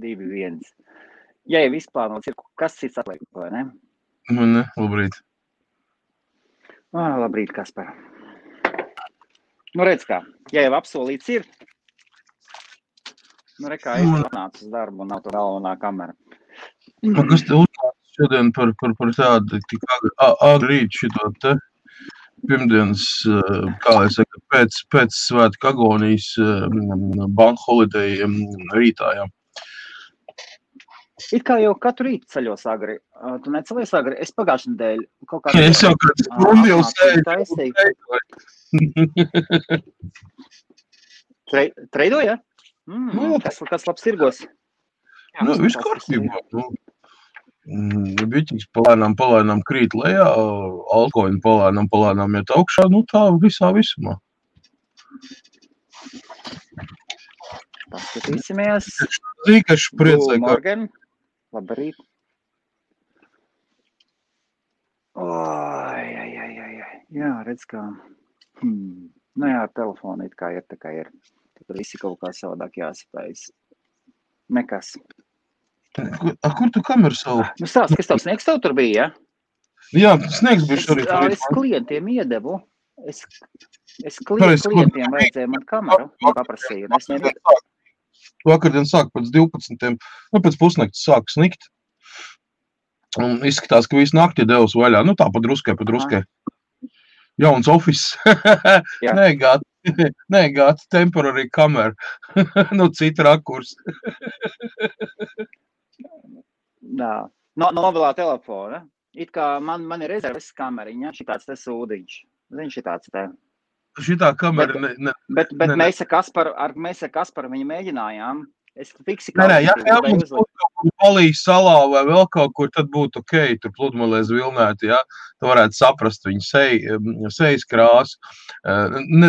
2-1. Ja jau izplānots ir, kas cits atliek, vai ne? Ne, labrīt. Labrīt, Kaspar. Nu, redz kā, ja jau apsolīts ir, nu, rekā es atnācu uz darbu un nav to galvenā kamera. Kas te uznāca šodien par tādu tik agri rīt šito te pirmdienas, kā lai saka, pēc svētku agonijas bank holiday rītā, jā. It kā jau katru rītu ceļos agri. Tu necelies agri? Es pagājušajā nedēļu kaut kā... Es jau kāds stundu jau sēju. Treidoja? Kas labs tirgos? Nu, viss kārtībā. Biķis palēnām krīt lejā, altcoin palēnām iet augšā, nu tā visā visumā. Paskatīsimies. Zīkaši priecē, ka... Morgan, labrīt. Jā, redz kā. Nu jā, telefoni it kā ir, tā kā ir. Tad visi kaut kā savādāk jāspējas. Nekas. Kur tu kameru savu? Nu stāst, kas tavs sniegs tev tur bija, ja? Jā, sniegs bija šorīt. Es klientiem iedevu. Es klientiem vajadzēja man kameru un paprasīju. Un es nevienu. Vakardien sāk pēc 12. Pēc pusnakts sāk snikt. Un izskatās, ka visu nakti devus vaļā. Nu tā, pa druskai. Jauns office. Nē, gāds temporary kamera. Nu, cita rakurs. Jā. Novilā telefona. It kā man ir rezerves kameriņa, šitāds te sūdiņš. Zini, šitāds te. Šitā kamera Bet mēs ar Kasparu viņu mēģinājām. Es fiksi ja mums būtu kaut kur Polijas salā vai vēl kaut kur, tad būtu ok, tur pludmalēs vilnēti, ja? Tu varētu saprast viņu sejas krāsu,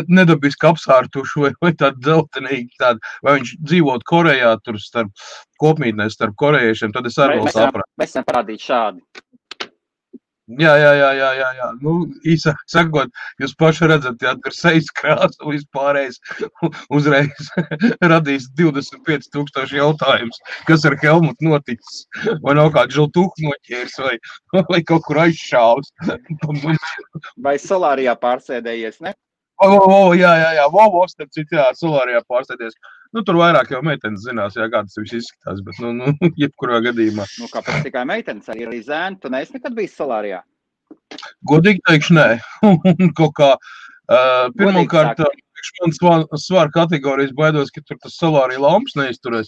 nedabiski apsārtušu vai tādu dzeltenīgi, vai viņš dzīvot Korejā, tur starp kopmītnēs, starp korejiešiem, tad es arī vēl sapratu. Mēs varam parādīt šādi. Jā. Nu, īsāk sakot, jūs paši redzat, ja tur sejas krāsu vispārējais uzreiz radīs 25,000 jautājumus, kas ar Helmutu noticis. Vai nav kāds žiltuhu noķērs vai kaut kur aizšāvs. Vai solārijā pārsēdējies, ne? Jā, starp citu, jā, solārijā pārsēdējies. Nu, tur vairāk jau meitenes zinās, jā, kā tas viss izskatās, bet, jebkurā gadījumā. Nu, kāpēc tikai meitenes, arī zēni, tu neesi nekad bijis solārijā? Godīgi teikšu, nē. Kaut kā, pirmkārt, man svara kategorijas baidos, ka tur tas solārija lamps neizturēs.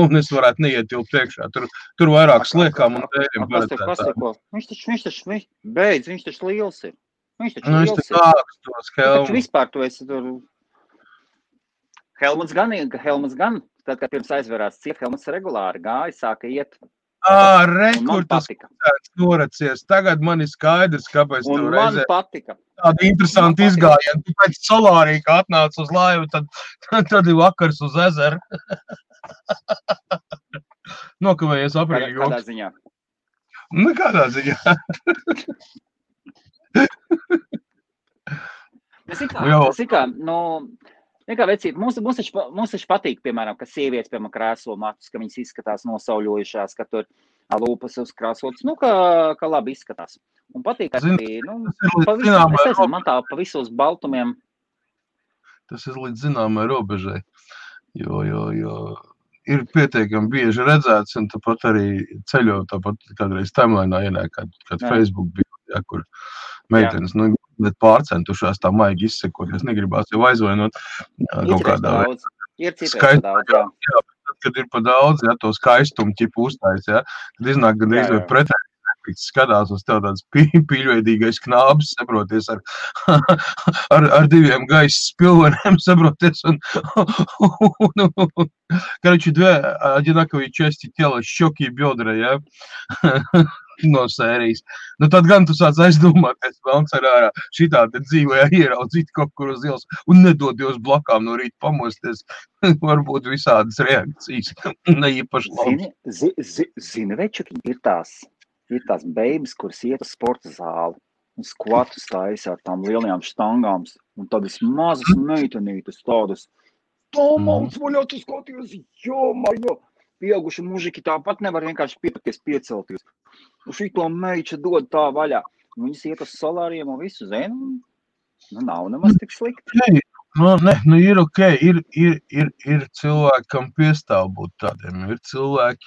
Un es varētu neietilpt priekšā. Tur vairāk sliekām un tēriem paredzētā. Viņš taču liels ir. Viņš taču ākstos, Helmuts. Taču vispār tu esi tur... Helmuts gan, tad, kad pirms aizverās ciet, Helmuts regulāri gāja, sāka iet. Kur tas noracies. Tagad man ir skaidrs, kāpēc tu reizē. Un man patika. Tāda interesanta izgājiena. Tu pēc solārija, kā atnāc uz laivu, tad ir vakars uz ezeru. Nokavējies aprīļa joks. Kādā ziņā? Kādā ziņā. Nekā vecīt, mums taču patīk, piemēram, ka sievietes, piemēram, krēslo matus, ka viņas izskatās nosauļojušās, ka tur lūpas uzkrāsotas, ka labi izskatās. Un patīk arī, man tā pa visos baltumiem. Tas ir līdz zināmai robežai, jo ir pietiekami bieži redzēts, un tāpat arī ceļot, tāpat kādreiz timelinā ienāk, kad Facebook bija, ja, kur meitenes, bet pārcentušās tā maigi izsekot, es negribās jau aizvainot kaut kādā veidā. Ir citreiz daudz, jā. Jā, bet kad ir pa daudz, ja, to skaistumu ķipu uztais, ja, tad iznāk gandrīz vai pretēji efekts, skatās uz tev tāds pīļveidīgais knābis, saproties, ar diviem gaisa spilveniem, saproties, un короче, две одинаковые части тела, щеки и бедра, ja, no sērijas. Nu, tad gan tu sāc aizdomāties, velns ar ārā šitā te dzīvē ieraudzīt kaut kur uz ielas un nedodies blakām no rīta pamosties. Varbūt visādas reakcijas, neīpaši labi. Zini, večuki, ir tās beigas, kuras iet uz sporta zāli un skvatus taisa ar tām lielajām štangām un tādas mazas meitenītas, tādas Tomauts vaļā, tu skaties, jo, pieauguši mužiki tāpat nevar vienkārši piepakties piecelties. Šito meiča dod tā vaļā. Viņas iet uz solāriem un visu zinu. Nav nemaz tik slikti. Ir ok, ir cilvēki, kam piestāv būt tādiem, ir cilvēki,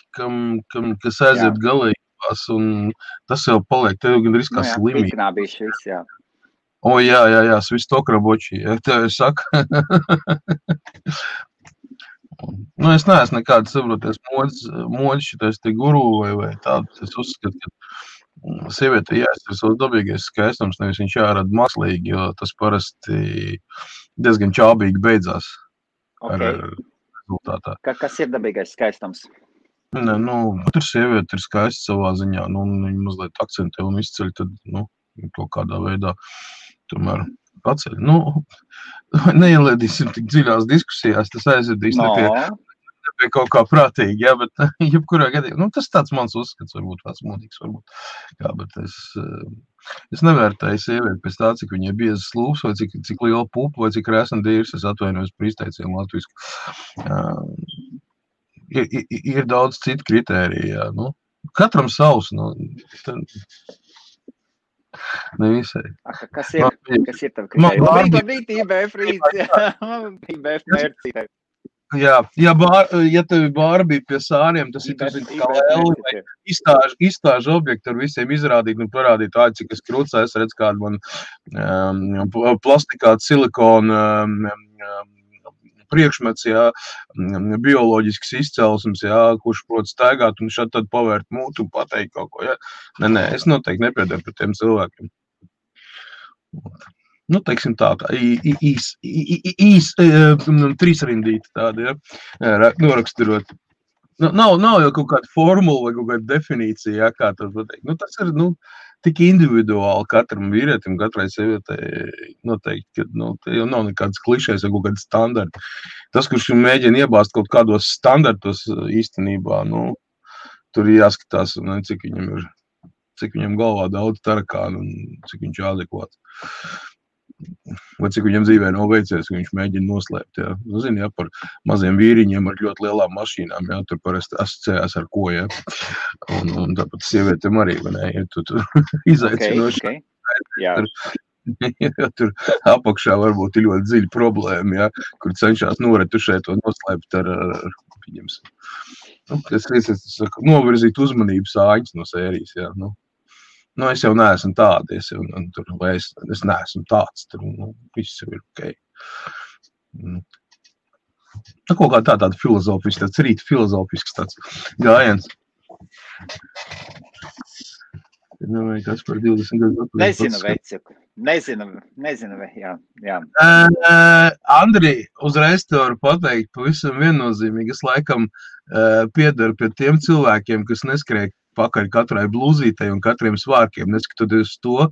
kas aiziet galējībās, un tas jau paliek, tev gandrīz kā slimība. Piknābīši viss, jā. Jā, svistokraboči, ja tev saka. Es neesmu nekāds, saproties, mods šitais te guru vai tādu, es uzskatu, ka sieviete jāiztur savs dabīgais skaistums, nevis viņš jārada mākslīgi, jo tas parasti diezgan čābīgi beidzās ar rezultātā. Kas ir dabīgais skaistums? Tur sieviete ir skaista savā ziņā, viņa mazliet akcentē un izceļ, tad, kaut kādā veidā tomēr paceļ. Neielēdīsim tik dziļās diskusijās, tas aizvedīs pie kaut kā prātīgi, jā, bet jebkurā gadījumā, tas tāds mans uzskats, varbūt vecmodīgs, bet es nevērtēju sievieti pēc tā, cik viņai biezas lūpas, vai cik liela pupa, vai cik rēsna dīrs, es atvainojos par izteicienu latvisku. Ir daudz citu kritēriju, jā, katram savs, nevisai. Kas ir tavi kritēriji? Labrīt, IBF rīts, IBF mērcītē. Ja tevi Barbie pie sāriem, tas ir kā lēli, izstāžu objektu ar visiem izrādīt un parādīt, cik es krūcā, es redzu kādu man plastikātu silikonu priekšmets, bioloģisks izcelsums, kurš prot staigāt un šad tad pavērt mūtu un pateikt kaut ko, Nē, es noteikti nepiedaru par tiem cilvēkiem. Teiksim tā, trīsrindīti tādi, noraksturot. Nav jau kaut kāda formula vai kaut kāda definīcija, kā tas pateikt. Tas ir, tik individuāli katram vīrietim, katrai sievietei noteikti, ka, jau nav nekāds klišējs vai kaut kāds standarti. Tas, kurš mēģina iebāzt kaut kādos standartos īstenībā, tur ir jāskatās, cik viņam galvā daudz tarakānu un cik viņš adekvāts. Vai cik viņam dzīvē nav veicies, ka viņš mēģina noslēpt, par maziem vīriņiem ar ļoti lielām mašīnām, tur parasti asociējās ar ko, un tāpat sievietēm arī, tur izaicinoši. Tur apakšā varbūt ir ļoti dziļa problēma, kur cenšās noretušēt un noslēpt ar pieņemsim. Es saku, novirzīt uzmanību sāņas no sērijas, es jau neesmu tādi, es neesmu tāds, tur viss jau ir ok. Kaut kā tāda filozofisks, tāds rīta filozofisks tāds gājiens. Kas par 20 gadu? Nezinu, veciku. Nezinu, jā. Andri, uzreiz te varu pateikt pavisam viennozīmīgi, es laikam piedaru pie tiem cilvēkiem, kas neskrēja pakaļ katrai blūzītei un katriem svārkiem, neskatoties to,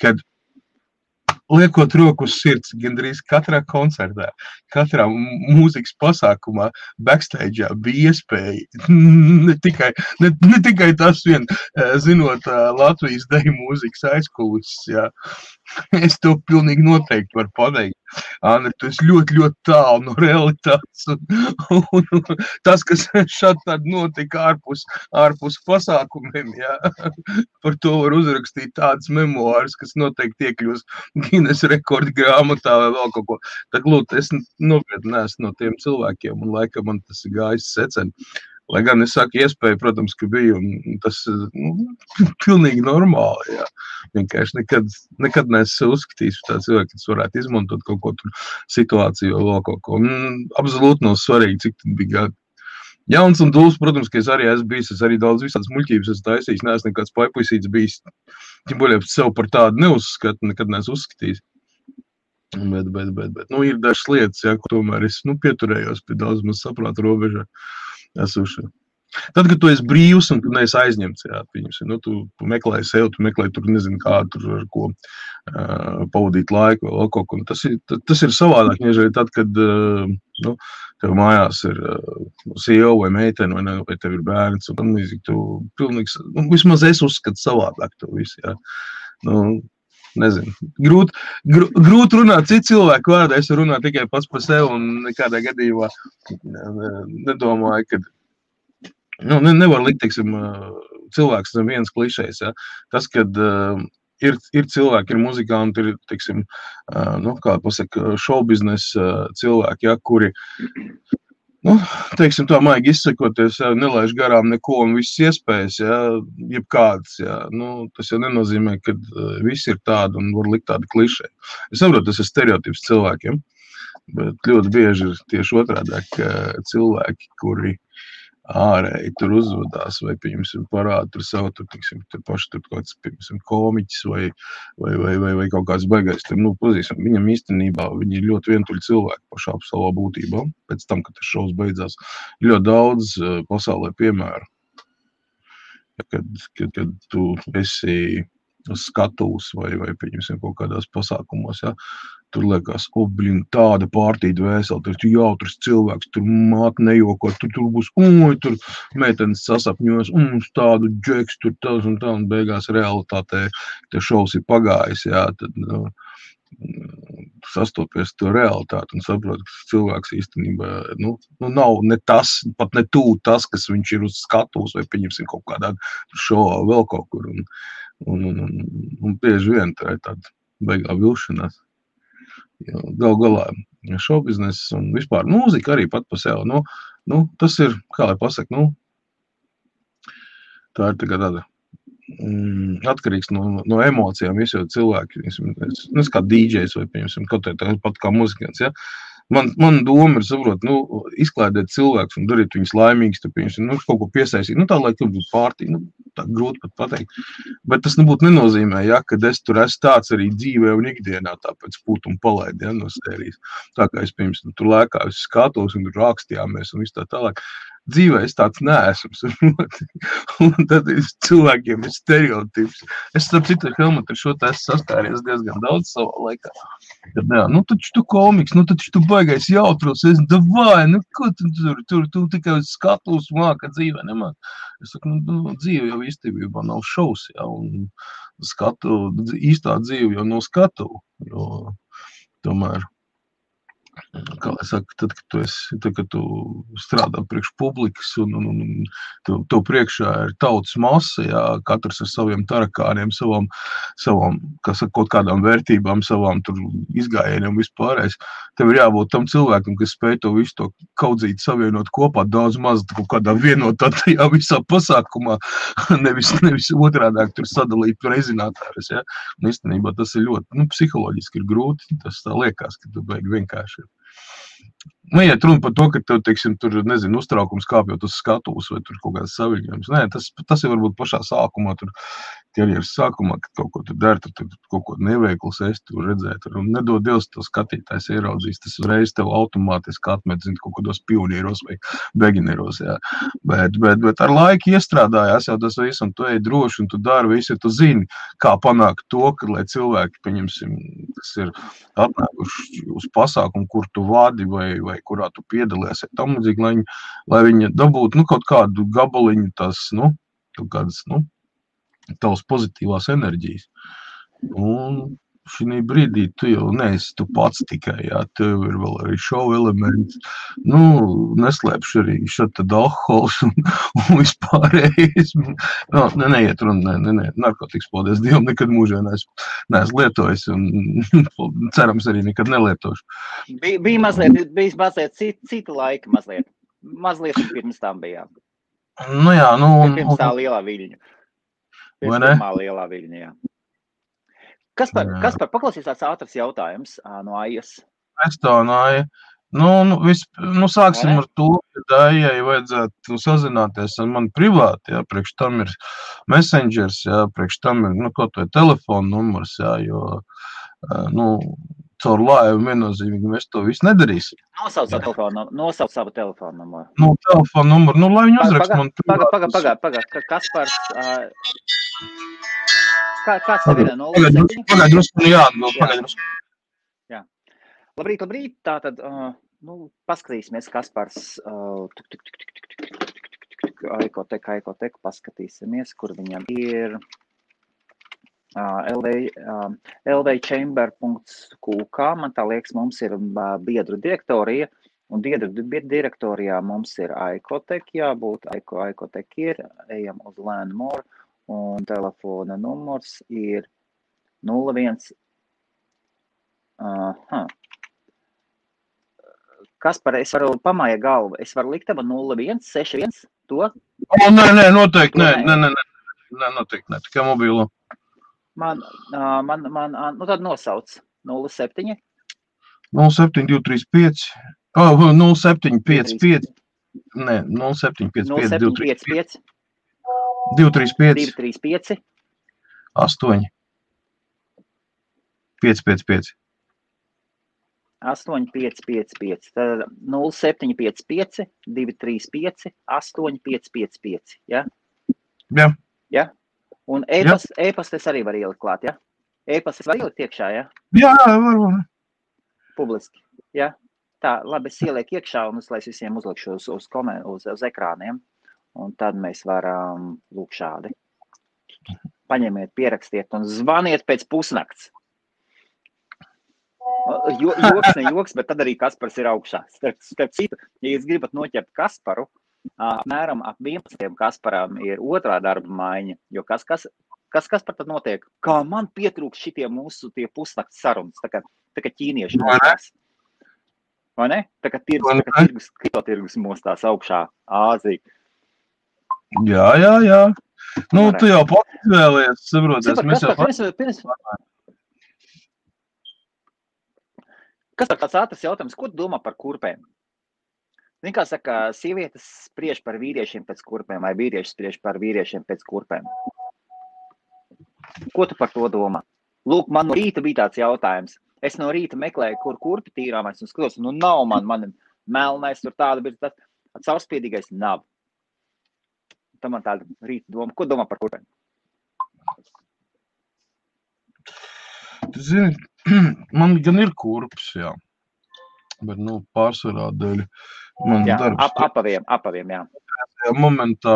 kad liekot roku uz sirds gandrīz katrā koncertā, katrā mūzikas pasākumā, backstage'ā bija iespēja, ne tikai tas vien, zinot Latvijas deju mūzikas aizkulises, es to pilnīgi noteikti varu pateikt. Andri, tu esi ļoti, ļoti tālu no realitātes, un tas, kas šādi tad notika ārpus pasākumiem, par to var uzrakstīt tādas memoāras, kas noteikti iekļūs Guinness rekordu grāmatā vai vēl kaut ko. Tā lūdzu, es nopietni neesmu no tiem cilvēkiem, un laikam man tas ir gājis seceni. Lai gan es saku, iespēja, protams, ka bija, un tas pilnīgi normāli, Vienkārši nekad neesmu uzskatījis tā cilvēki, kas varētu izmantot kaut ko tur situāciju vai vēl kaut ko. Absolūti nav svarīgi, cik tad bija gadi. Jauns un dūls, protams, ka es arī esmu bijis, es arī daudz visādas muļķības esmu taisījis, neesmu nekāds paipuisīts bijis. Tiem boļiem sev par tādu neuzskatu, nekad neesmu uzskatījis. Bet, ir dažas lietas, ko tomēr es, pieturējos pie daudz maz saprāta robežā. Esuši. Tad, kad tu esi brīvs un tu neesi aizņemts, tu meklē sev, tu meklē tur, nezinu kā, tur ar ko pavadīt laiku vai kaut ko. Tas ir savādāk, nežēl tad, kad tev mājās ir sieva vai meitene vai tev ir bērns, un tu pilnīgi, vismaz es uzskatu savādāk to visu, nezinu. Grūti runāt citu cilvēku vārdā, es runāju tikai pats par sevi un nekādā gadījumā nedomāju, ka nevar likt, teiksim, cilvēks zem viens klišejs, ja. Tas, kad ir cilvēki, ir muzikanti, ir, teiksim, kā pasaka, šovbiznesa cilvēki, ja, kuri, teiksim, tā maigi izsakoties, ja, nelaiž garām neko un visas iespējas, ja, jebkādas, ja, tas jau nenozīmē, ka visi ir tādi un var likt tādi klišeji. Es saprotu, tas ir stereotips cilvēkiem, bet ļoti bieži ir tieši otrādāk cilvēki, kuri ārēji tur uzvedās vai, pieņemsim, parāda tur savu, teiksim, paši tur kāds, pieņemsim, komiķis vai kaut kāds baigais. Pazīstam, viņam īstenībā viņi ir ļoti vientuļi cilvēki pašā savā būtībā. Pēc tam, kad tas šovs beidzās, ļoti daudz pasaulē piemēru. Kad tu esi uz skatuves vai pieņemsim, kaut kādās pasākumos, ja, tur liekas, tāda pārtīda vēseli, tur jautrs cilvēks, tur māte nejoko, tur būs, tur meitenes sasapņos, tādu džeks, tur tas un tā, un beigās realitātē, te šovs ir pagājis, jā, tad, sastopies to realitāti un saprot, ka cilvēks īstenībā, nav ne tas, pat ne tūlīt tas, kas viņš ir uz skatuves vai pieņemsim kaut kādā šovā vēl kaut kur, un bieži vien tā ir tāda beigā vilšanās. Gal galā šovbizness un vispār mūzika arī pat pa sev, tas ir, kā lai pasaka, tā ir tāda atkarīgs no emocijām, visi jau cilvēki, es kā DJs vai, piemēram, kaut pat kā muzikants, ja. Man doma ir saprot, izklaidēt cilvēkus un darīt viņus laimīgus, kaut ko piesaistīt, tā lai tur būtu pārtī, tā grūti pat pateikt. Bet tas nebūtu nenozīmē, ja, kad es tur esmu tāds arī dzīvē un ikdienā, tāpēc pūt un palaid, ja, no sērijas. Tā kā es, piemēram, tur lēkāju uz skatos un tur rakstījāmies un viss tā tālāk. Dzīvē es tāds neesmu, un tad cilvēkiem ir stereotips. Es starp citu Helmut ar šo te esmu saskāries diezgan daudz savā laikā. Kad, taču tu komiks, taču tu baigais jautros, davai, ko tu tikai uz skatus māka dzīvē nemāk. Es saku, dzīve jau īstenībā nav šovs, ja, un īstā dzīve jau nav skatu, jo tomēr. Kā lai saka, tad, kad tu strādā priekš publikas un tev priekšā ir tautas masa, jā, katrs ar saviem tarakāniem, savām kaut kādām vērtībām, savām tur izgājieniem vispārējais, tev ir jābūt tam cilvēkam, kas spēj to visu to kaudzīt savienot kopā daudz maz kaut kādā vienotā tajā visā pasākumā, nevis otrādāk tur sadalīt rezinātājus, jā. Un īstenībā tas ir ļoti, psiholoģiski ir grūti, tas tā liekas, ka tu beigi vienkārši ir. Neiet runa par to, ka tev, teiksim, tur, nezinu, uztraukums kāpjot uz skatuves vai tur kaut kādas saviņojums. Nē, tas ir varbūt pašā sākumā, tur karjeras sākumā, kad kaut ko tur der, tur kaut ko neveikls es tur redzēt. Un nedod Dievs, to skatītājs ieraudzīs, tas uzreiz tev automātiski atmet, zin, kaut kādos pionieros vai begineros, jā. Bet ar laiku iestrādājās jau tas viss, un tu ej droši, un tu dari visu, ja tu zini, kā panākt to, ka, lai cilvēki, pieņemsim, kas ir atnākuši uz pasākumu, kur tu vadi vai kurā tu piedalies, tam līdzīgi, lai viņi dabūtu, kaut kādu gabaliņu tās, kaut kādas, tavas pozitīvās enerģijas. Un šī brīdī tu jau neesi tu pats tikai, jā, tev ir vēl arī šovu elements, neslēpšu arī šeit tad alkohols un vispārējais. Neiet runa, narkotikas, paldies Dievam, nekad mūžā neesmu lietojis un cerams arī nekad nelietošu. Bija mazliet cita laika mazliet. Mazliet pirms tam bijām. Jā, pirms tā lielā viļņa. Pirms pirmā lielā viļņa, jā. Kaspar, paklausīs tāds ātrs jautājums no Aijas. Es tā, Aija. Sāksim ar to, ka Aijai vajadzētu sazināties ar mani privāti, jā, priekš tam ir messengers, jā, priekš tam ir, kaut vai telefona numurs, jā, jo, caur laivu viennozīmīgi mēs to visu nedarīsim. Nosauc savu telefonu numuru. Telefonu numuru, lai viņi uzrakst man privāti. Paga, Kaspars... Kāds tev ir? Pagaidrusku. Jā. Labrīt. Tātad, paskatīsimies, Kaspars. Aikotek, paskatīsimies, kur viņam ir. lvchamber.qk, man tā liekas, mums ir biedru direktorija, un biedru direktorijā mums ir Aikotek jābūt, Aikotek ir, ejam uz Learn More, un telefona numurs ir 01. Kaspar, es varu pamāja galvu, es varu likt tava 0161 to? Nē, noteikti, nē, noteikti, ne, tikai mobilo. Man, tad nosauc 07. 07235, 0755, nē, 0755, 235, 8, 555. 8555, tad 0755, 235, 8555, ja? Jā. Ja? Un e-pastes arī var ielikt klāt, ja? E-pastes var ielikt iekšā, ja? Jā, var. Publiski, ja? Tā, labi, es ielieku iekšā un es visiem uzlikšu uz ekrāniem, un tad mēs varam lūk šādi. Paņemiet, pierakstiet un zvaniet pēc pusnakts. Joks, bet tad arī Kaspars ir augšā. Starp citu, ja jūs gribat noķert Kasparu, apmēram ap 11. Kasparam ir otrā darba maiņa, jo kas Kaspar tad notiek? Kā man pietrūks šitie mūsu tie pusnakts sarunas, tā kā ķīnieši mostās. Vai ne? Tā kā kriptotirgus mostās augšā Āzija. Jā. Nu, tu jau pats izvēlies, saproties. Kas par tāds ātrs jautājums? Ko tu domā par kurpēm? Zini, kā saka, sievietes spriež par vīriešiem pēc kurpēm, vai vīrieši spriež par vīriešiem pēc kurpēm? Ko tu par to domā? Lūk, man no rīta bija tāds jautājums. Es no rīta meklēju, kur kurpi tīrāmais, un skatos, nu nav man melnais, tur tāda bija tāds caurspiedīgais nav. Tā man tāda rīta doma. Ko domā par kurpēm? Tu zini, man gan ir kurps, jā. Bet, pārsvarā dēļ man darbs. Apaviem, jā. Momentā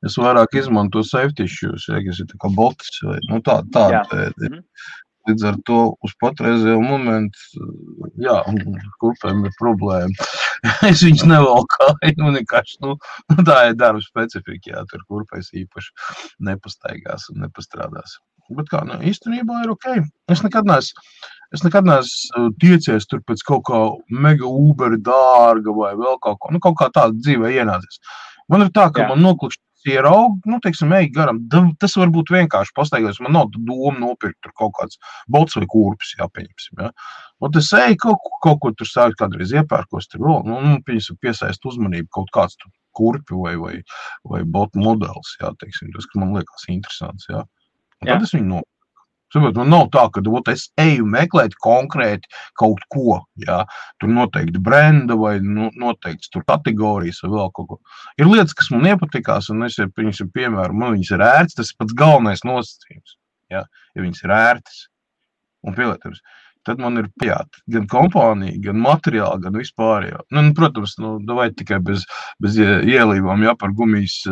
es vairāk izmanto safety issues, kas ir tā kā bots vai, tāda. Līdz ar to uz patreizējo momentu, jā, kurpēm ir problēma. Es viņus nevalkāju, vienkārši, tā ir darba specifika, jā, tur kurpēs īpaši nepastaigās un nepastrādās. Bet kā, īstenībā ir ok. Es nekad neesmu tiecies tur pēc kaut kā mega Uber dārga vai vēl kaut kā, kaut kā tāda dzīvē ienācies. Man ir tā, ka man noklikšķi ierauga, teiksim, ej garam, tas var būt vienkārši pastaigājums, man nav doma nopirkt tur kaut kāds bots vai kurpis, jāpieņemsim, ja. Un es eju kaut ko tur sākt kādreiz iepērkos, tur vēl, piesaist uzmanību kaut kāds tur kurpi vai botu modelis, jā, teiksim, tas, kas man liekas interesants, jā. Un tad es viņu nopirku. Saprot, man nav tā, ka es eju meklēt konkrēti kaut ko, jā, tur noteikti brenda vai noteikti tur kategorijas vai vēl kaut ko. Ir lietas, kas man iepatikās, un es, piemēram, man viņas ir ērtas, tas ir pats galvenais nosacījums, jā, ja viņas ir ērtas un pielietams. Tad man ir pajāt gan kompānija, gan materiāli, gan vispārējo. Protams, vai tikai bez ielībām, jā, par gumijas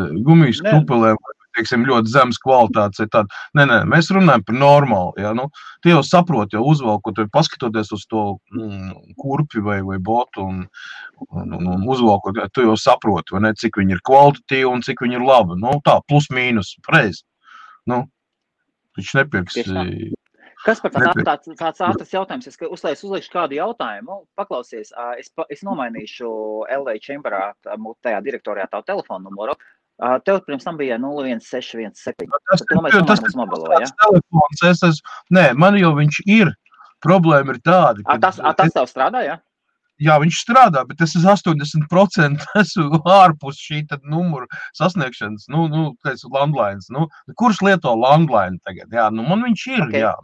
krupelēm, teiksim, ļoti zemes kvalitātes ir tāda. Nē, mēs runājam par normālu, jā, tu jau saproti, jau uzvalkot, paskatoties uz to kurpi vai botu un uzvalkot, tu jau saproti, vai ne, cik viņi ir kvalitatīvi un cik viņi ir labi. Tā, plus mīnus, reiz. Viņš nepirks. Kas par tāds ātrs jautājums? Es uzliekšu kādu jautājumu. Paklausies, es nomainīšu LV Chamberā, tajā direktorijā tavu telefonu numuru. Tev pirms tam bija 01617. Tas ir mobilo, ja? Telefons, nē, man jau viņš ir. Problēma ir tāda. Tas tev strādā, ja? Jā, viņš strādā, bet es 80% esmu ārpus šī numuru sasniegšanas, landlines. Kurš lieto landline tagad? Jā, man viņš ir, okay. Jā.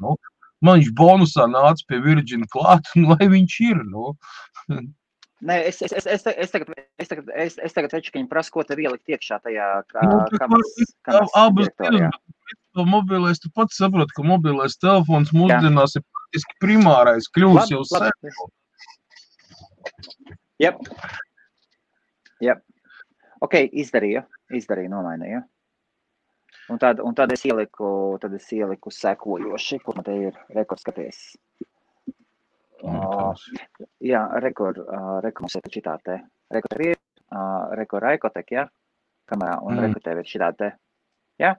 Man viņš bonusā nāca pie Virgin klāt, lai viņš ir, Nē, es tagad veču, ka viņi prasa, ko tev ielikt iekšā tajā kameras direktorijā. Mobilais, tu pats saproti, ka mobilais telefons mūsdienās ir praktiski primārais kļūs jau sevi. Jep. Ok, izdarīju, nomainīju. Un tad es ieliku sekojoši, kur man te ir rekordskaties. Jā, rekord mums ir šitā te. Rekord ir, rekord Raikotek, jā, kamerā, un rekord tev ir šitā te. Jā?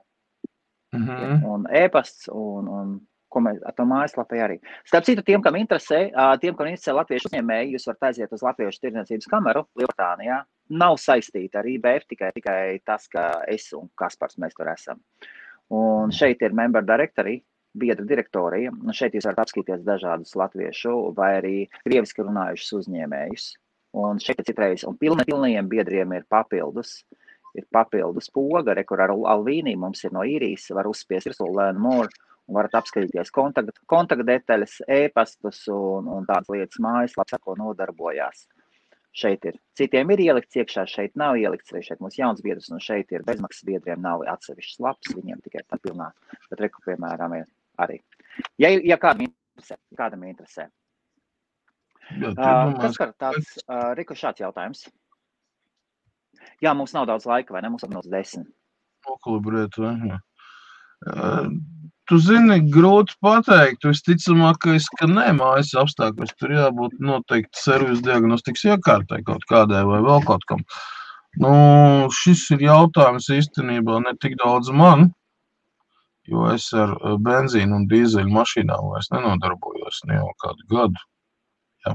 Un e-pasts, un ko mēs ar to mājaslapē arī. Starp citu, tiem, kam interesē latviešu uzņēmēji, jūs varat aiziet uz Latviešu tirdzniecības kameru Lielbritānijā. Nav saistīta ar IBF, tikai tas, ka es un Kaspars mēs tur esam. Un šeit ir member directory, biedra direktorija, un šeit jūs varat apskatīties dažādus latviešu vai arī krieviski runājušus uzņēmējus. Un šeit citreiz, un pilnajiem biedriem ir papildus poga, kur ar Alvīnī mums ir no īrijas, var uzspiest virsū learn more, un varat apskatīties kontaktdetaļas, e-pastus un tādas lietas mājaslapas, ar ko nodarbojās. Šeit ir. Citiem ir ielikts iekšā, šeit nav ielikts, arī šeit mums jauns biedrs, un šeit ir bezmaksas biedriem nav atsevišķs laps, viņiem tikai tā pilnā, bet reku, piemēram, ir arī. Ja kādam interesē. Kaspar, tāds, Riku, šāds jautājums. Jā, mums nav daudz laika, vai ne? Mums apmēram 10. Nokalibrēt, vai? Tu zini, grūti pateikt, visticamākais, ka nē, mājas apstākļos tur jābūt noteikti servis diagnostikas iekārtai kaut kādai vai vēl kaut kam. Šis ir jautājums īstenībā ne tik daudz man, jo es ar benzīnu un dīzeļu mašīnām vairs nenodarbojos ne jau kādu gadu. Jā.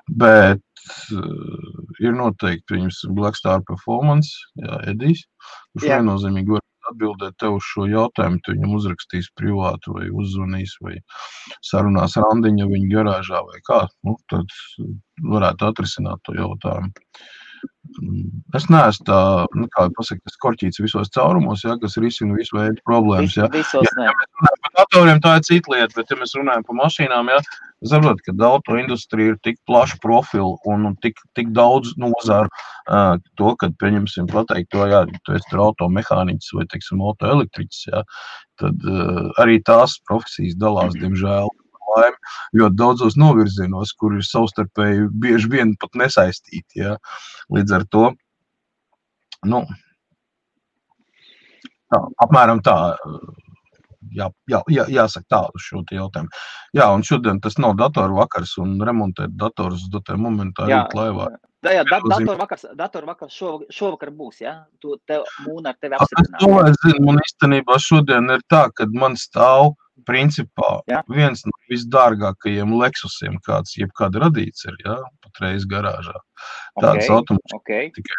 Bet ir noteikti viņas Black Star Performance, jā, Edijs, kurš viennozīmīgi var atbildēt tev uz šo jautājumu, tu viņam uzrakstīs privātu vai uzzvanīs vai sarunās randiņa viņa garāžā vai kā, tad varētu atrisināt to jautājumu. Es neesmu tā, kā pasaka, tas korķīts visos caurumos, jā, kas risina visu veidu problēmas, jā. Visos ne. Par datoriem tā ir cita lieta, bet ja mēs runājam par mašīnām, jā, saprot, ka autoindustrija ir tik plaša profila un tik daudz nozaru to, kad pieņemsim pateikt to, jā, tu esi tur automehāniķis vai, teiksim, autoelektriķis, jā, tad arī tās profesijas dalās, diemžēl, ļoti daudzos novirzienos, kur ir savstarpēji bieži vien pat nesaistīti, jā. Līdz ar to, apmēram tā, jāsaka tā uz šo jautājumu. Jā, un šodien tas nav datoru vakars, un remontēt datorus uz datoru momentā rīt laivā. Jā, datoru vakars šovakar būs, jā? Mūna ar tevi apstiprināt. Es zinu, man īstenībā šodien ir tā, kad man stāv principā viens no visdārgākajiem Lexusiem, kāds jebkad radīts ir, jā, patreiz garāžā. Tāds automašīnas tikai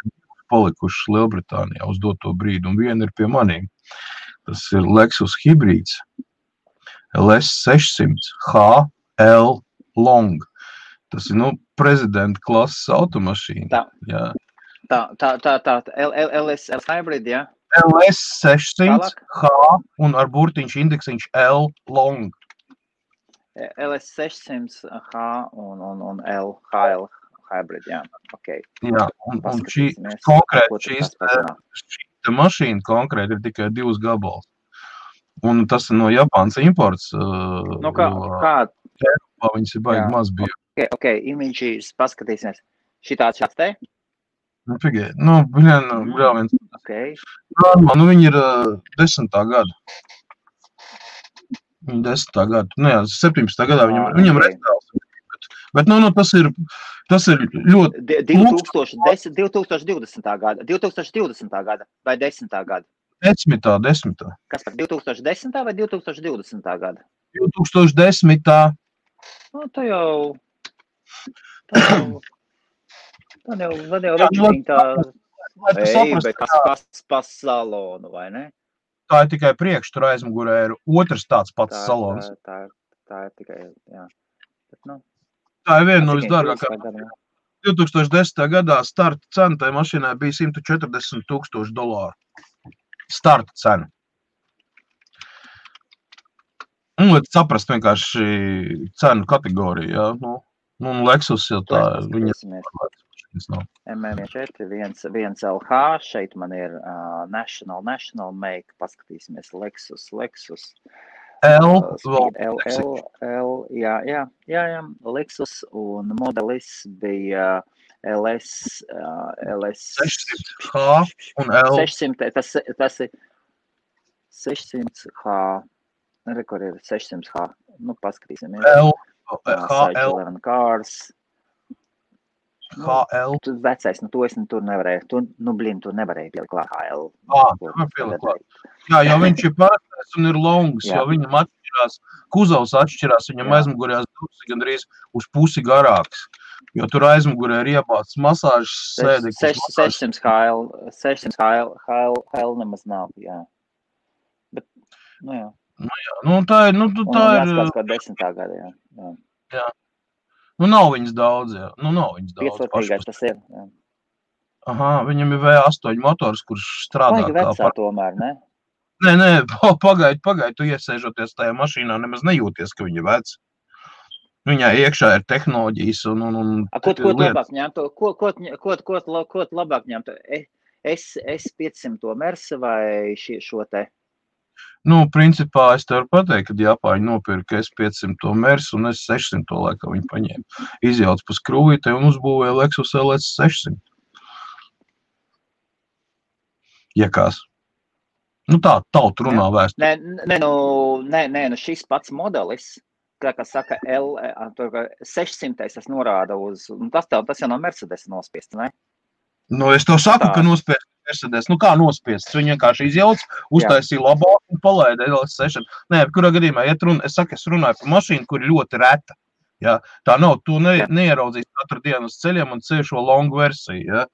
palikušas Lielbritānijā uz doto brīdi, un viena ir pie manīm. Tas ir Lexus hibrīds LS600 HL Long. Tas ir, prezidenta klases automašīna. Tā, LS hybrid, jā? LS600 H un ar burtiņš indeksiņš L Long. LS600 H un L HL hybrid, jā. Okay. Jā, un šī mašīna konkrēti ir tikai 2 gabals. Un tas ir no Japānas imports. Eiropā viņas ir baigi maz bija. Ok, imidžīs paskatīsimies. Šāds te? Pigiet, vēl viens. Viņi ir 10. gada. Viņi 10. gada. 17. gadā viņam restaurāls. Bet, tas ir ļoti... 2020. gada. 2020. gada vai 10. gada? 10. Kas par 2010. vai 2020. gada? 2010. Tā jau večiņ tā, bet kas pa salonu, vai ne? Tā ir tikai priekš, tur aizmugurē ir otrs tāds pats salons. Tā ir tikai, jā. Bet, tā ir viena no visdārgākajām. 2010. gadā starta cena tai mašīnai bija $140,000. Starta cena. Un saprast vienkārši cenu kategoriju, jā. Lexus jau tā, viņa MM4, viens LH, šeit man ir National make, paskatīsimies, Lexus, jā, Lexus un modelis bija LS 600H un L. 600, tas ir 600H. Rekur ir 600H. Nu, paskatīsimies. Cycle Cars. HL. Tu vecais, to es tur nevarēju. Tur nevarēju pielikt klāt HL. Pielikt klāt. Jā, jo viņš ir parastais un ir longs, jo viņam atšķirās, kuzovs atšķirās, viņam aizmugurējās durvis gandrīz uz pusi garāks. Jo tur aizmugurē ir iebāts masāžas sēdeklis. 600 HL nemaz nav, jā. Bet, jā. Tā ir... jāskatās kā 10. gada, jā. Nav viņas daudz, jā. Nav viņas daudz. Piecvārtīgais tas ir, jā. Aha, viņam ir V8 motors, kurš strādā kā... vecā tomēr, ne? Nē, pagaid, tu iesēžoties tajā mašīnā, nemaz nejūties, ka viņa vec. Viņā iekšā ir tehnoloģijas un Ko tu labāk ņemtu? Ko tu labāk ņemtu? S500 Mersa vai šo te? Principā es tev varu pateikt, kad Japāņi nopirka S500 Mersu un S600 laikā viņi paņēma. Izjauc pa skrūvītē un uzbūvēja Lexus LS600. Jakās. Tā tautu runā vēsturi. Nē, šis pats modelis, kā saka, 600 tas norāda uz, tas jau no Mercedes nospiests, ne? Es tev saku, ka nospiests Mercedes. Kā nospiests? Viņi vienkārši izjauc, uztaisīja labāk un palaida LS6. Nē, kurā gadījumā, es runāju par mašīnu, kur ir ļoti reta. Ja? Tā nav, tu neieraudzīs katru dienu uz ceļiem un ceļ šo longu versiju. Ja?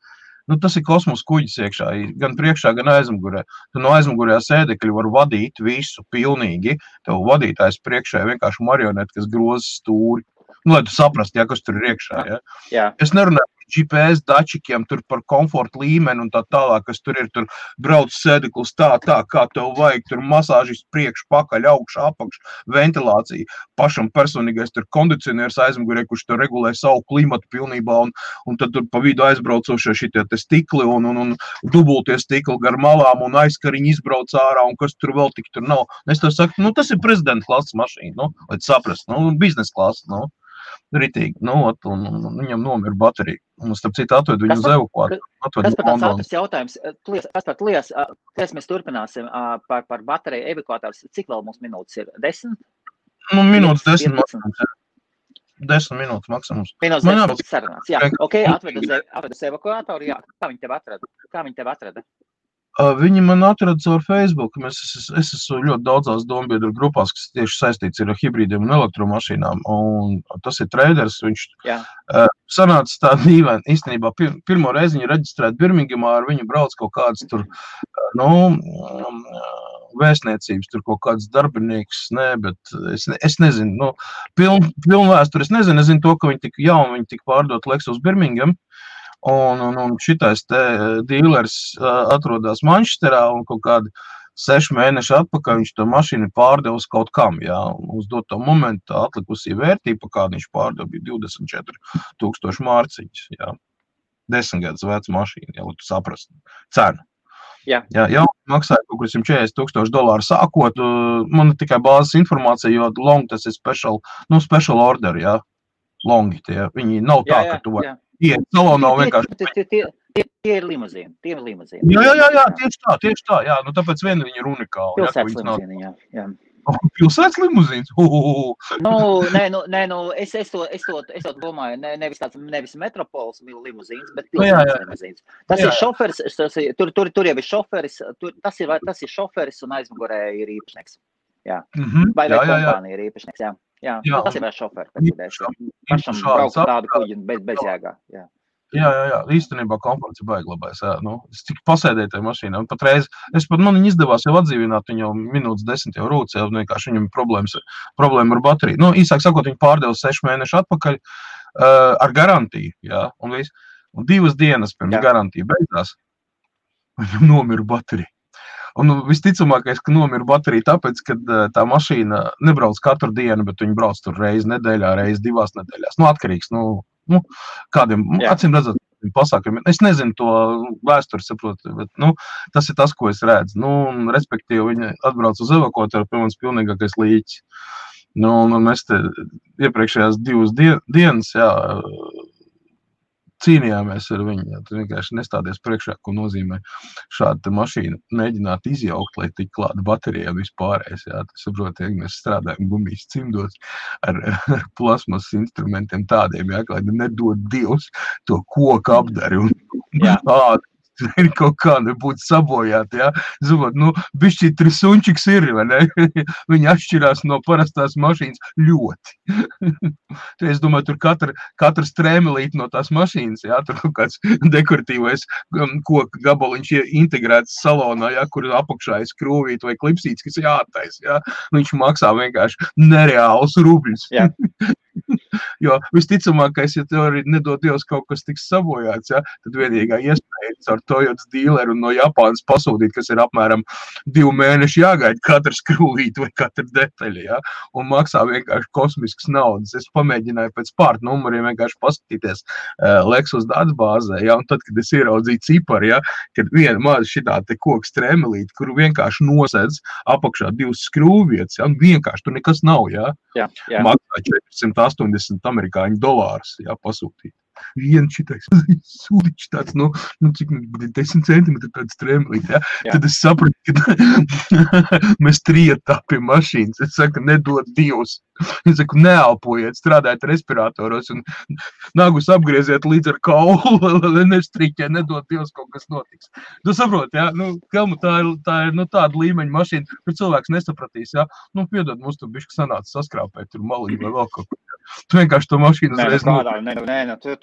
Tas ir kosmos kuģis iekšā, gan priekšā, gan aizmugurē. Tu no aizmugurējā sēdekļa var vadīt visu pilnīgi. Tev vadītājs priekšā ir vienkārši marioneti, kas groza stūri. Lai tu saprast, kas tur ir iekšā. Ja? Jā. Es nerunāju par GPS dačikiem, tur par komforta līmeni un tā tālāk, kas tur ir, tur brauc sēdeklis tā, kā tev vajag, tur masāžis priekš, pakaļ, augš, apakš, ventilācija, pašam personīgais tur kondicionieris aizmugurē, kurš tur regulē savu klimatu pilnībā, un tad tur pa vidu aizbraucošie šitie te stikli un dubultie stikli gar malām un aizkariņi izbrauc ārā, un kas tur vēl tik tur nav. Es tev saku, tas ir prezidenta klases mašīna, lai tu saprast, biznesa klases, ritīgi, un viņam nomira baterija. Un starp citu atved viņu uz evakuāciju. Kas par tāds ātrs jautājums? Kas mēs turpināsim par bateriju evakuātājus? Cik vēl mums minūtes ir? 10? Minūtes 10 maksimums. 10 minūtes maksimums. Minūtes 10 būs sarunāts. Jā, ok, atved uz evakuātoru. Jā, kā viņi tev atrada? Viņi man atrada caur Facebook. Es esmu ļoti daudzās dombiedru grupās, kas tieši saistīts ar hibrīdiem un elektromašīnām. Un tas ir traders. Viņš sanāca tā dīvaini. Īstenībā pirmo reizi viņa reģistrēta Birmingemā, ar viņu brauc kaut kāds tur, vēstniecības, tur kaut kāds darbinieks, bet es nezinu, pilnu vēsturi es nezinu to, ka viņi tika pārdot Lexus Birmingham. Un šitais te dīlers atrodas Manchesterā un kaut kādi 6 mēneši atpakaļ viņš to mašīnu pārdevis kaut kam, uz doto momentu atlikusī vērtība, kāda viņš pārdeva, bija 24,000 mārciņas, 10 gadus veca mašīna, lai tu saprastu cenu. Jā, maksāja kaut kur $140,000 sākot, man ir tikai bāzes informācija, jo long tas ir special order, longi tie, viņi nav tā, ka tu vari. Salonā vienkārši. Tie ir limuzīni. Jā, tieši tā. Tāpēc viena viņi ir unikāli. Pilsētas limuzīni, jā. Pilsētas limuzīns? Es to domāju, nevis metropols limuzīns, bet pilsētas limuzīns. Tas ir šoferis, tur jau ir šoferis, tas ir šoferis un aizmugurē ir īpašnieks. Jā. Vai kompānija ir īpašnieks, jā. Jā, tas ir vēl šoferi. Pašam braukt tādu kuģi bez jēgā. Jā, īstenībā komforts ir baiglabājis. Es tik pasēdēju tajā mašīnā. Patreiz, man viņa izdevās jau atdzīvināt, viņa jau minūtes 10 jau rūc, vienkārši viņam problēma ar bateriju. Īsāk sakot, viņa pārdeva 6 mēnešu atpakaļ ar garantiju. Un 2 dienas pirms garantija beigās, viņam nomira baterija. Un visticamākais, ka nomira baterija tāpēc, ka tā mašīna nebrauc katru dienu, bet viņi brauc tur reizi nedēļā, reizi 2 nedēļās. Atkarīgs, kādiem, acīm redzot, pasākumiem. Es nezinu to vēsturi, saprotu, bet, tas ir tas, ko es redzu. Respektīvi, viņi atbrauc uz evakuātoru, pie manis pilnīgākais līķis. Un mēs te iepriekšējās 2 dienas, cīnījāmies ar viņu. Jā, tu vienkārši nestādies priekšā, ko nozīmē šāda mašīna mēģināt izjaukt, lai tik klāta baterija un vispārējais. Jā, tu saproti, ja mēs strādājam gumijas cimdos ar plasmas instrumentiem tādiem, jā, lai nedod Dievs to koku apdari un kaut kā nebūtu sabojāti, jā. Zinot, bišķi trisunčiks ir, vai ne? Viņi atšķirās no parastās mašīnas ļoti. Es domāju, tur katra strēmelīte no tās mašīnas, jā, tur kaut kāds dekoratīvais koka gabaliņš integrēts salonā, jā, kur apakšā ir skrūvīt vai klipsīts, kas jātais, jā. Viņš maksā vienkārši nereālus rubļus. Jā. Jo visticamākais, ja tev arī nedod Dievs kaut kas tiks sabojāts, ja, tad vienīgā iespēja ar Toyotas dīleru un no Japānas pasūtīt, kas ir apmēram 2 mēneši jāgaida katra skrūvīte vai katra detaļa, ja, un maksā vienkārši kosmiskas naudas. Es pamēģināju pēc pārta numuriem vienkārši paskatīties Lexus datubāzē, ja, un tad, kad es ieraudzīju ciparu, ja, kad viena maza šitā te koka strēmelīte, kuru vienkārši nosedz apakšā 2 skrūvvietas, ja, un vienkārši tur nekas nav, ja. Jā. Maksā $480 amerikāņu dolārus, jā, pasūtīt. Viens šitais sūdiņš tāds, cik 10 centimetri tāds strēmelīt, jā. Tad es sapratu, ka mēs trietā pie mašīnas. Es saku, nedod Dievs. Es saku, neelpojiet, strādājiet respiratoros un nagus apgrieziet līdz ar kaulu, lai nestrīķē, nedod Dievs, kaut kas notiks. Tu saproti, jā, Kelmu, tā ir tāda līmeņa mašīna, kur cilvēks nesapratīs, jā. Piedod, mums tu bišķi sanāca saskrāpēt, tur maliņu vai vēl kaut ko. Tu vienkārši to mašīnu uzreiz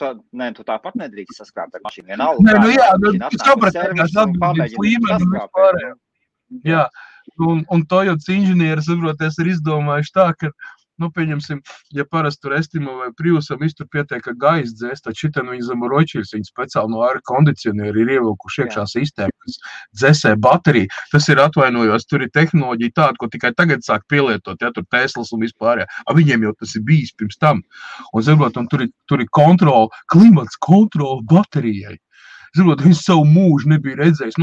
tu tāpat nedrīkst saskrāpt ar mašīnu. Vienalga. Tu saprati, atbildības līmeni un vispārējā. Jā, un Toyotas inženieri, saproties, ir izdomājuši tā, ka, pieņemsim, ja parasti tur Estimo vai Priusam iztur pietiek, ka gaisa dzēs, tad šitan viņi zem roķiļus, viņi speciāli no air kondicionieri ir ievilkuši iekšā sistēma, kas dzēsē bateriju. Tas ir atvainojos, tur ir tehnoloģija tāda, ko tikai tagad sāk pielietot, ja tur Teslas un vispārējā. Viņiem jau tas ir bijis pirms tam. Un, zinot, un tur ir kontrola, klimats kontrola baterijai. Zinot, viņš savu mūžu nebija redzējis.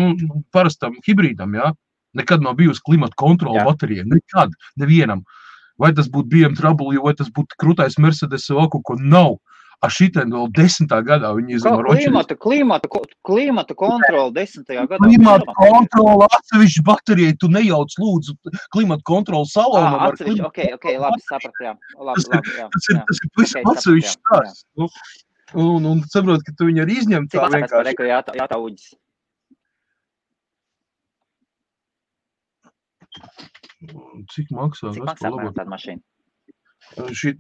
Parastam hibrīdam, jā, nekad nav bijusi klimata kontrola baterijai. Nekad, nevienam. Vai tas būtu BMW, vai tas būtu krūtais Mercedes vai kaut ko nav. Šitien vēl 10. gadā viņi izdomā roķiļus. Klimata kontrola 10. gadā. Klimata kontrola atsevišķi baterijai, tu nejauc lūdzu klimata kontrola salonam. Atsevišķi, ok, labi, saprat, jā. Tas ir visam atsevišķi stāsts. Un saprot, ka tu viņu arī izņem tā vienkārši. Jātā uģis. Cik maksā? Cik maksā tāda mašīna? Šīt,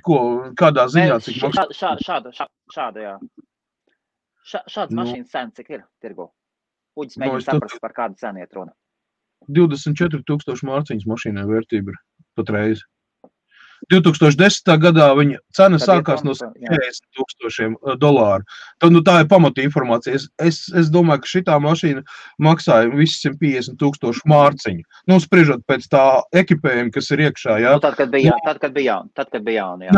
ko, kādā ziņā, cik maksā? Šāda, jā. Šāds mašīnas cena, cik ir tirgo? Uģis mēģina saprast, par kādu cenu iet runa. 24,000 mārciņas mašīnai vērtība ir patreiz. 2010. gadā viņa cena sākās no $40,000. Tad, tā ir pamata informācija. Es domāju, ka šitā mašīna maksāja visi 150,000 mārciņu. Spriežot pēc tā ekipējuma, kas ir iekšā, jā. Tad, kad bija jauna, jā.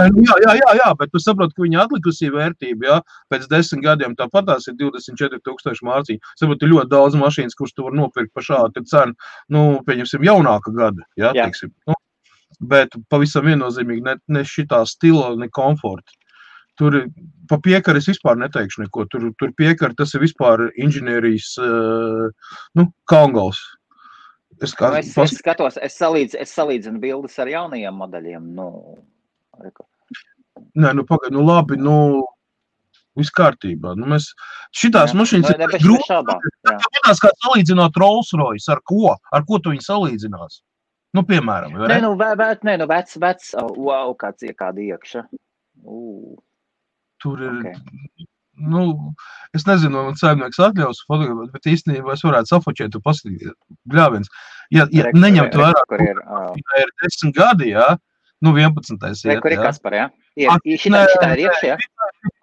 Jā, bet tu saproti, ka viņa atlikusī vērtība, jā, pēc 10 gadiem tāpat tās ir 24,000 mārciņu. Saproti, ļoti daudz mašīnas, kuras tu var nopirkt par šādu cenu, pieņemsim, jaunāka gada, jā, teiksim. Bet pavisam viennozīmīgi ne šitā stila, ne komforta. Tur pa piekari es vispār neteikšu neko. Tur piekari tas ir vispār inženierijas, kalngals. Es skatos, es salīdzinu bildes ar jaunajiem modeļiem. Nē, pagaid, labi, viss kārtībā. Šitās mašīnas ir grūti. Tāpēc kā salīdzināt Rolls Royce, ar ko? Ar ko tu viņu salīdzinās? Piemēram. Vecs, wow, kāda iekša. Tur ir, es nezinu, man saimnieks atļaus fotografēt, bet īstenībā es varētu safočēt un paskatīties. Bļāviens. Ja neņemt vairāk, ja ir 10 gadi, jā, 11. iet, kur ir Kaspar, jā? Šitā ir iekšā, jā?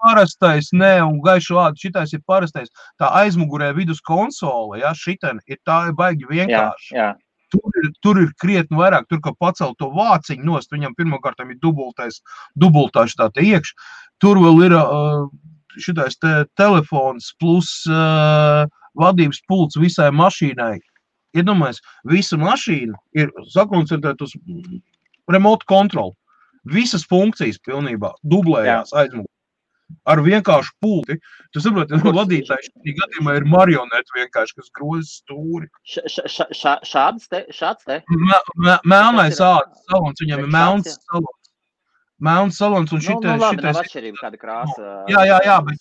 Parastais, un gaišu vārdu, šitais ir parastais. Tā aizmugurē vidus konsole, jā, šitien ir tā baigi vienkārši. Jā. Tur ir krietni vairāk, tur, ka pacelt to vāciņu nost, viņam pirmkārtam ir dubultā šitā te iekš. Tur vēl ir šitais te telefons plus vadības pults visai mašīnai. Iedomājies, visa mašīna ir sakoncentrēta uz remote control. Visas funkcijas pilnībā dublējās aizmugurē. ar vienkāršu pulti. Tu saproti, vadītājs šī gadījumā ir marioneti vienkārši, kas groza stūri. Šāds te? Melnais ādas salons, viņam ir melns salons. Melns salons un šitais... Labi, nav atšķirība kāda krāsa. Jā, bet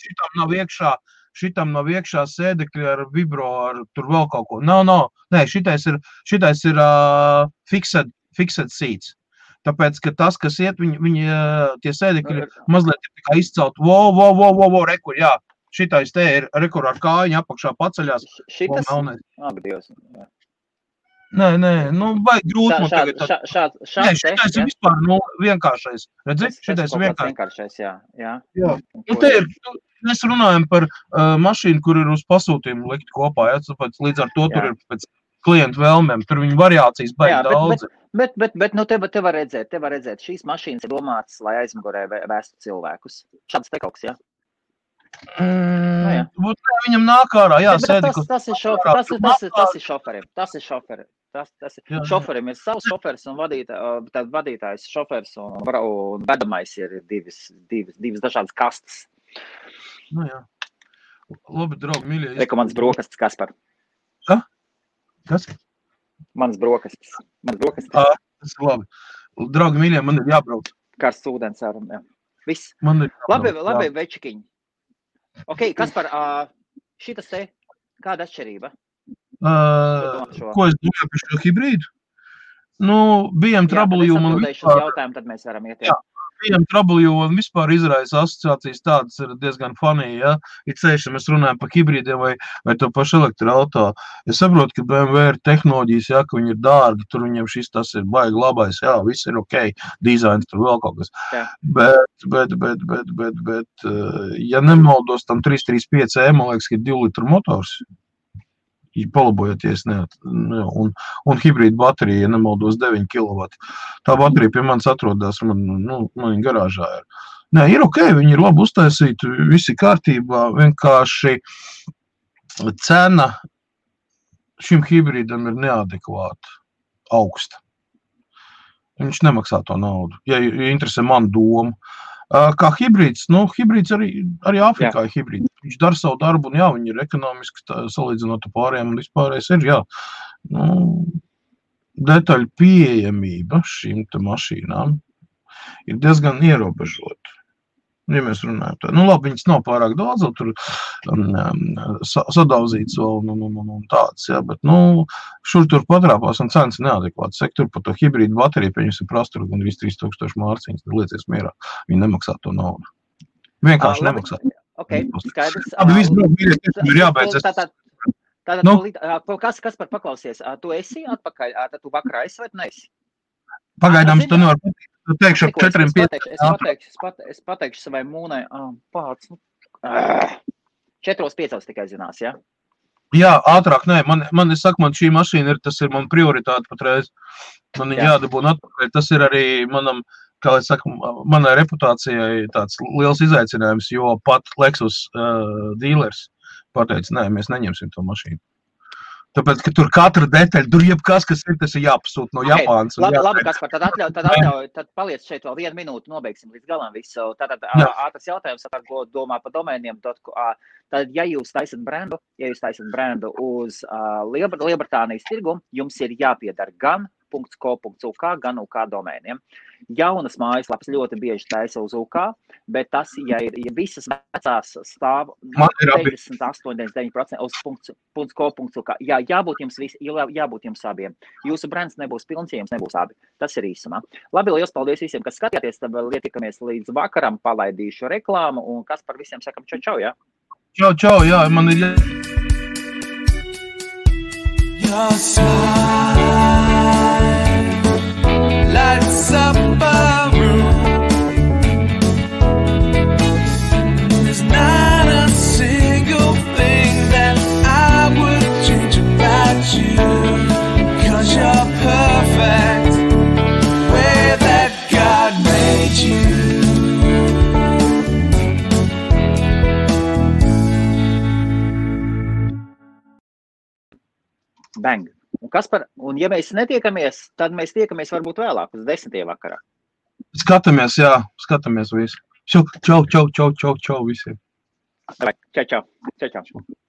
šitam nav iekšā sēdekļi ar vibro, ar tur vēl kaut ko. Nē, šitais ir fixed seats. Tāpēc, ka tas, kas iet, viņi tie sēdekļi mazliet ir tikai izcelt. Rekur, jā. Šitais te ir rekur ar kājiņu apakšā paceļās. Šitas? Abi Dievs. Nē, vajag grūti man tagad. Nē, šitais ir vispār vienkāršais. Redzi? Šitais ir vienkāršais, jā. Un te ir, mēs runājam par mašīnu, kur ir uz pasūtījumu likt kopā, jā. Tāpēc līdz ar to tur ir pēc klientu vēlmēm. Tur viņa variācijas baigi daudz. Bet te var redzēt, šīs mašīnas ir domātas, lai aizmugurē vēstu cilvēkus. Šāds te kaut kas, jā? Viņam nāk ārā, jā, sēdeklis. Tas ir šoferim. Šoferim ir savs šofers un vadītājs šofers un vedamais ir divas dažādas kastes. Jā. Labi, draugi, mīļie. Reku mans brokastis, Kaspar. Kas? Mans brokastis. Tas ir labi. Draugi, mīļie, man ir jābrauc. Karsts ūdens ārum, jā. Viss. Labi, večikiņi. Ok, Kaspar, šitas te, kāda atšķirība? Ko es domāju par šo hibrīdu? BMW man vispār... Tad mēs varam iet, jā. BMW un vispār izraisa asociācijas tādas ir diezgan funny, ja? Ir ceļš, ja mēs runājam par hibrīdiem vai to pašu elektroauto. Es saprotu, ka BMW ir tehnoloģijas, ja, ka viņi ir dārgi, tur viņiem šis tas ir baigi labais, jā, viss ir ok, dizains tur vēl kaut kas. Jā. Bet, ja nemaldos, tam 335e, man liekas, ka ir 2 litru motors. Palabojoties, un hibrīda baterija, ja nemaldos 9 kW. Tā baterija pie manis atrodas, man garāžā ir. Nē, ir ok, viņi ir labi uztaisīti, visi kārtībā, vienkārši cena šim hibrīdam ir neadekvāta, augsta. Viņš nemaksā to naudu, ja interesē man domu. Kā hibrīds, hibrīds arī Āfrikā ir hibrīds. Viņš dara savu darbu, un jā, viņi ir ekonomiski salīdzinot pārējiem, un vispārējais ir, jā. Detaļu pieejamība šīm te mašīnām ir diezgan ierobežota. Ja mēs runājam tā. Labi, viņas nav pārāk daudz, tur sadauzīts vēl un tāds, jā, bet, šur tur patrāpās un cenas neadekvāts. Tur par to hibrīdu bateriju pieņems ir prastura gan 3000 mārciņas, liecies mierā. Viņi nemaksā to naudu. Vienkārši nemaksā. Ok, skaidrs. Abi viss ir jābeidz. Kas par paklausies? Tu esi atpakaļ? Tu vakarā esi vai tu neesi? Pagaidām tu nevar pateikt. Tu teikšu ar 4-5. Es pateikšu savai mūnai, pāc, 4-5 tikai zinās, jā? Jā, ātrāk, nē, man šī mašīna tas ir man prioritāte patreiz. Man jādabūna atpakaļ, tas ir arī manam, kā es saku, manai reputācijai tāds liels izaicinājums, jo pat Lexus dealers pateica, nē, mēs neņemsim to mašīnu. Tāpēc, ka tur katra detaļa, tur jebkas, kas ir, tas ir jāpasūt no Japānas. Labi, Kaspar, tad paliec šeit vēl 1 minūti, nobeigsim līdz galam visu. Tātad ātrs jautājums, ko domā par domēniem. Tad, ja jūs taisat brendu uz Lielbritānijas tirgu, jums ir jāpiedara gan .co.uk, gan UK domēniem. Jaunas mājaslapas ļoti bieži taisa uz UK, bet tas, ja visas vecās stāv 98-99% uz .co.uk, jābūt jums abiem. Jūsu brands nebūs pilns, ja jums nebūs abi. Tas ir īsumā. Labi, liels paldies visiem, kas skatījāties, tad vēl ietikamies līdz vakaram, palaidīšu reklāmu, un kas par visiem sakam čau, jā? Čau, jā, man ir lights up a room. There's not a single thing that I would change about you, 'cause you're perfect way that God made you. Bang. Un ja mēs netiekamies, tad mēs tiekamies varbūt vēlāk, uz 10. vakarā. Skatāmies, jā, skatāmies visu. Čau visiem! Čau, čau.